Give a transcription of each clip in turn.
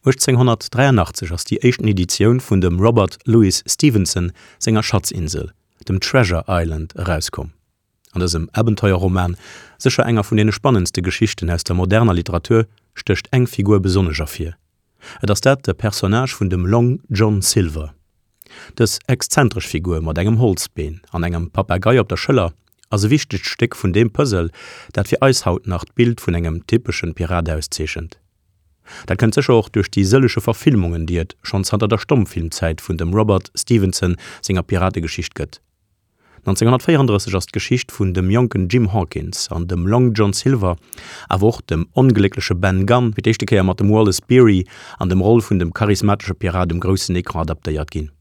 1883 ass déi éischten Editioun vun dem Robert Louis Stevenson senger Schatzinsel, dem Treasure Island, erauskomm. An dësem Abenteuerroman, sécher enger vun deene spannendste Geschichten aus der moderner Literatur, stécht eng Figur besonnesch ervir. Et ass dat de Personnage vun dem Long John Silver. Dës exzentresch Figur mat engem Holzbeen an engem Papagei op der Schëller ass e wichtegt Stéck vun deem Puzzle, dat fir eis haut nach d'Bild vun engem typeschen Pirat auszeechent. Dat kënnt sécher och duerch déi sëllege Verfilmungen, déi et schonn zanter der Stommfilmzäit vun dem Robert Stevenson senger Pirategeschicht gëtt. 1934 ass d'Geschicht vun dem jonken Jim Hawkins an dem Long John Silver, awer och dem ongléckleche Ben Gunn, fir d'éischte Kéier mat dem Wallace Beery an dem Roll vun dem charismatesche Pirat um groussen Ecran adaptéiert ginn.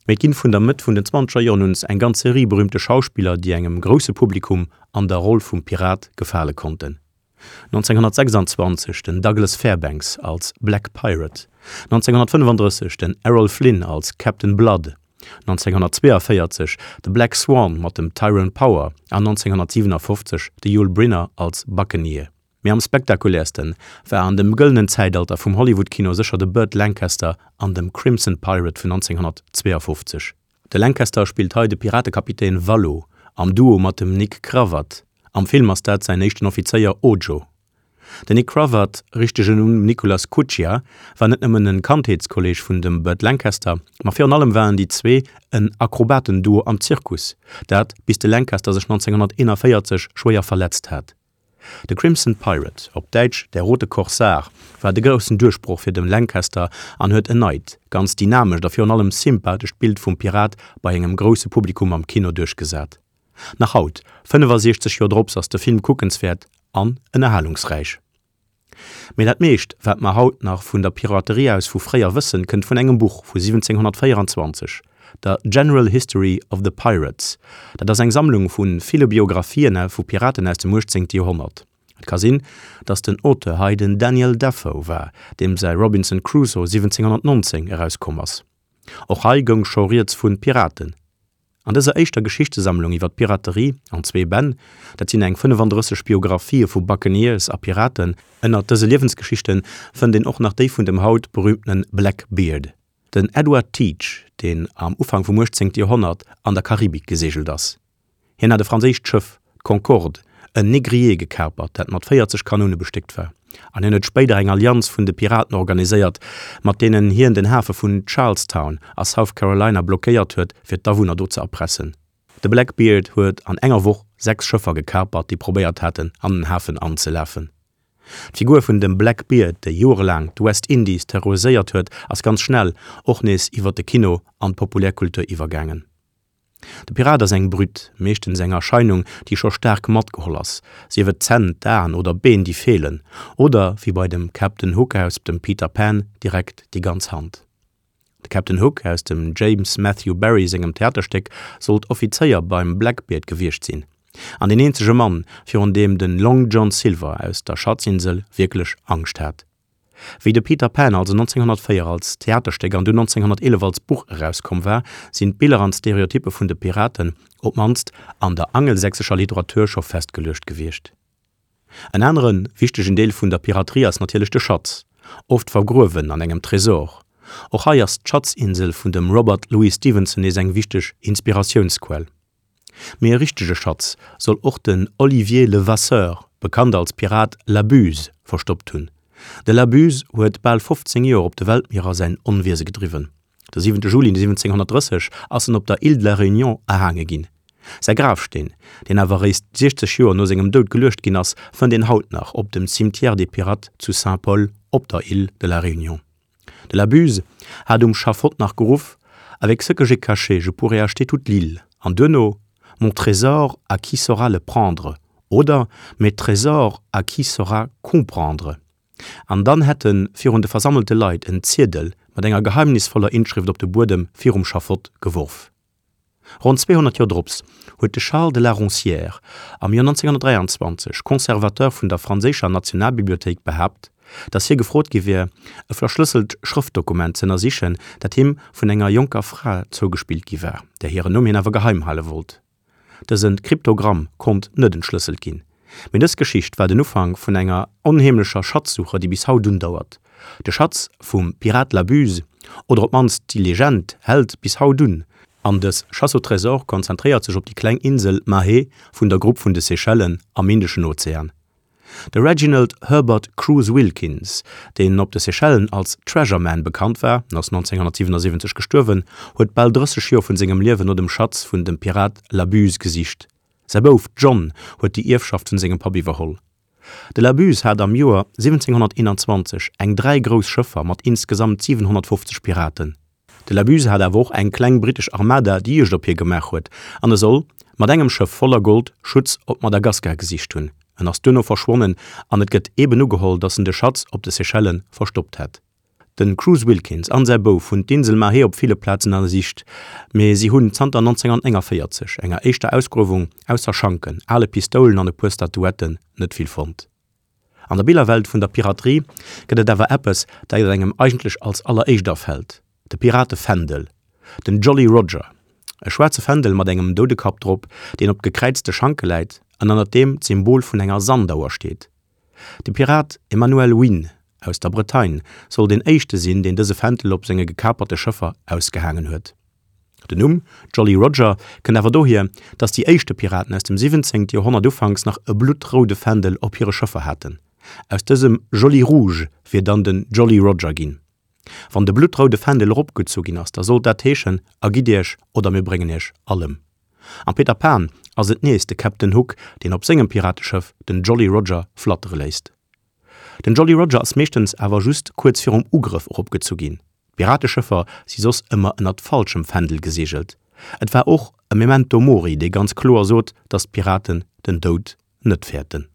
Mee et ginn vun der Mëtt vun den zwanzeger Joren un eng ganz Serie berühmte Schauspiller, déi engem grousse Publikum an der Roll vum Pirat gefale konnten. 1926 den Douglas Fairbanks als Black Pirate, 1935 den Errol Flynn als Captain Blood, 1942 de Black Swan mat dem Tyrone Power an 1957 de Yul Brynner als Buccaneer. Mee am spektakuläerste war an dem gëllenen Zäitalter vum Hollywood-Kino sécher de Burt Lancaster an dem Crimson Pirate vun 1952. De Lancaster spillt hei de Piratekapitän Vallo am Duo mat dem Nick Cravat, am Film ass dat säin éischten Offizéier Ojo. Den Nick Cravat, richtegen Numm Nicholas Cuccia, war net nëmmen en Kandheetskolleeg vun dem Burt Lancaster, ma virun allem waren déi zwee en Akrobatenduo am Zirkus, dat bis de Lancaster sech 1941 schwéier verletzt hat. De Crimson Pirate, op Däitsch Der rote Korsar, war de groussen Duerchbroch fir de Lancaster an huet en neit, ganz dynamescht a virun allem sympathescht Bild vum Pirat bei engem grousse Publikum am Kino duerchgesat. Nach haut, 65 Joer drops, ass de Film kuckenswäert an ënnerhalungsräich. Mee dat meescht, wat mer haut nach vun der Piraterie aus vu fréier wëssen, kënnt vun engem Buch vu 1724, der General History of the Pirates. Dat ass eng Sammlung vu ville Biographien vu Piraten aus dem 18. Joerhonnert. Et ka sinn, datt den Auteur hei den Daniel Defoe war, deem säi Robinson Crusoe 1719 erauskomm ass. Och hei goung scho rieds vu Piraten. An dëser éischter Geschichtesammlung iwwer d'Piraterie an zwee Bänn, dat sinn eng 35 Biographië vu Buccaneers a Piraten, Ënnert dëse Liewensgeschichte fënnt een och nach déi vun dem haut berüümtene Blackbeard, den Edward Teach, deen am Ufank vum 18. Joerhonnert an der Karibik geseegelt ass. Hien hat e franséischt Schëff, d'Concorde, en Négrier gekapert, dat mat 40 Kanoune bestéckt war, an hien huet spéider eng Allianz vun de Piraten organiséiert, mat deenen hien den Hafe vun Charlestown a South Carolina blockéiert huet, fir d'Awunner do ze erpressen. De Blackbeard huet an enger Woch 6 Schëffer gekapert, déi probéiert haten, an den Hafen anzelafen. D'Figur vun dem Blackbeard, déi joerelaang d'West Indies terroriséiert huet, ass ganz schnell och nees iwwer de Kino an d'Populärkultur iwwergaangen. De Pirat ass eng Brütt, meeschtens eng Erscheinung, déi scho staark matgeholl ass, sief et d'Zänn, d'Aen oder d'Been, déi feelen, oder, wéi bei dem Captain Hook aus dem Peter Pan, direkt déi ganz Hand. De Captain Hook aus dem James Matthew Barrie sengem Theaterstéck sollt Offizéier beim Blackbeard gewiescht sinn, an deen eenzege Mann, virun deem de Long John Silver aus der Schatzinsel wierklech Angscht hat. Wéi de Peter Pan also 1904 als Theaterstéck an dunn 1911 als Buch erauskomm war, sinn d'Biller an d'Stereotyppe vun de Piraten, op d'mannst an der angelsächsescher Literatur, scho festgeluecht gewiescht. En anere wichtegen Deel vun der Piraterie ass natierlech de Schatz, oft vergruewen an engem Tresor. Och hei ass d'Schatzinsel vun dem Robert Louis Stevenson nees eng wichteg Inspiratiounsquell. Mee e richtege Schatz soll och den Olivier Levasseur, bekannt als Pirat La Buse, verstoppt hunn. De La Buse huet bal 15 Joer op de Weltmierer säin Onwiese gedriwwen. De 7 Juli 1730 ass en op der Île de la Réunion erhaange ginn. Säi Grafsteen, deen awer eréischt 60 Joer no sengem Doud geluecht ginn ass, fënnt een haut nach op dem Cimetière des Pirates zu Saint-Paul op der Île de la Réunion. De la Buse hat um Schafott nach geruff, Avec ce que j'ai caché, je pourrais acheter toute l'île an duerno, Mon trésor, à qui saura le prendre? oder Mes trésors, à qui saura comprendre? An dann hätt en virun de versammelte Leit en Ziedel mat enger geheimnisvoller Inschrëft op de Buedem virum Schafott geworf. Ronn 200 Joer drops huet de Charles de La Roncière am Joer 1923, Conservateur vun der franséischer Nationalbibliothéik, behaapt, datt hie gefrot gi wier, e verschlësselt Schrëftdokument z'ënnersichen, dat him vun enger jonker Fra zougespillt gi war, där hiren Numm hien awer geheim hale wollt. Dëse Kryptogramm konnt net entschlësselt ginn. Mee dës Geschicht war den Ufank vun enger onheemlecher Schatzsuche, déi bis haut undauert. De Schatz vum Pirat La Buse, oder op d'mannst déi Legend, hält bis haut un, an dës Chasse au trésor konzentréiert sech op déi kleng Insel Mahé vun der Grupp vun de Seychellen am Indeschen Ozean. De Reginald Herbert Cruise Wilkins, deen op de Seychellen als Treasure Man bekannt war, en ass 1977 gestuerwen, huet bal 30 Joer vun sengem Liewen no dem Schatz vun dem Pirat La Buse gesicht. Säi Bouf John huet déi Ierfschaft vun sengem Papp iwwerholl. De La Buse hat am Joer 1721 eng 3 grouss Schëffer mat insgesamt 750 Piraten. De La Buse hat awer och eng kleng brittesch Armada, déi Juegd op hie gemaach huet, an e soll mat engem Schëff voller Gold Schutz op Madagaskar gesicht hunn. En ass duerno verschwonnen an et gëtt eeben ugeholl, datt en de Schatz op de Seychellen verstoppt hätt. De Cruise Wilkins an säi Bouf hunn d'Insel Mahé op ville Plazen ënnersicht, mee si hunn zanter 1949, enger éischter Ausgruewung, ausser Schanken, ale Pistoulen an e puer Statuetten net vill fonnt. An der Billerwelt vun der Piraterie gëtt et awer eppes, dat engem eigentlech als alleréischt afält, de Piratefändel, den Jolly Roger, e schwaarze Fändel mat engem Doudekapp drop, deen op gekräizte Schanke läit an ënnert deem d'Symbol vun enger Sandauer steet. De Pirat Emmanuel Wynne aus der Bretagne soll deen éischte sinn, deen dëse Fändel op senge gekaperte Schëffer ausgehaangen huet. Den Numm Jolly Roger kënnt awer dohier, datt déi éischte Piraten aus dem 17. Joerhonnert ufanks nach e bluttroude Fändel op hire Schëffer haten. Aus dësem Joli Rouge wier dann den Jolly Roger ginn. Wann de bluttroude Fändel eropgezu ginn ass, da sollt dat heeschen, Ergitt iech oder mir bréngen iech all ëm. Am Peter Pan ass et nees de Captain Hook, deen op sengem Pirateschëff den Jolly Roger flattere léisst. Den Jolly Roger ass meeschtens awer just kuerz virum Ugrëff eropgezu ginn. D'Pirateschëffer si soss ëmmer ënnert falschem Fändel geseegelt. Et war och e Memento Mori, dee ganz kloer sot, datt d'Piraten den Doud net fäerten.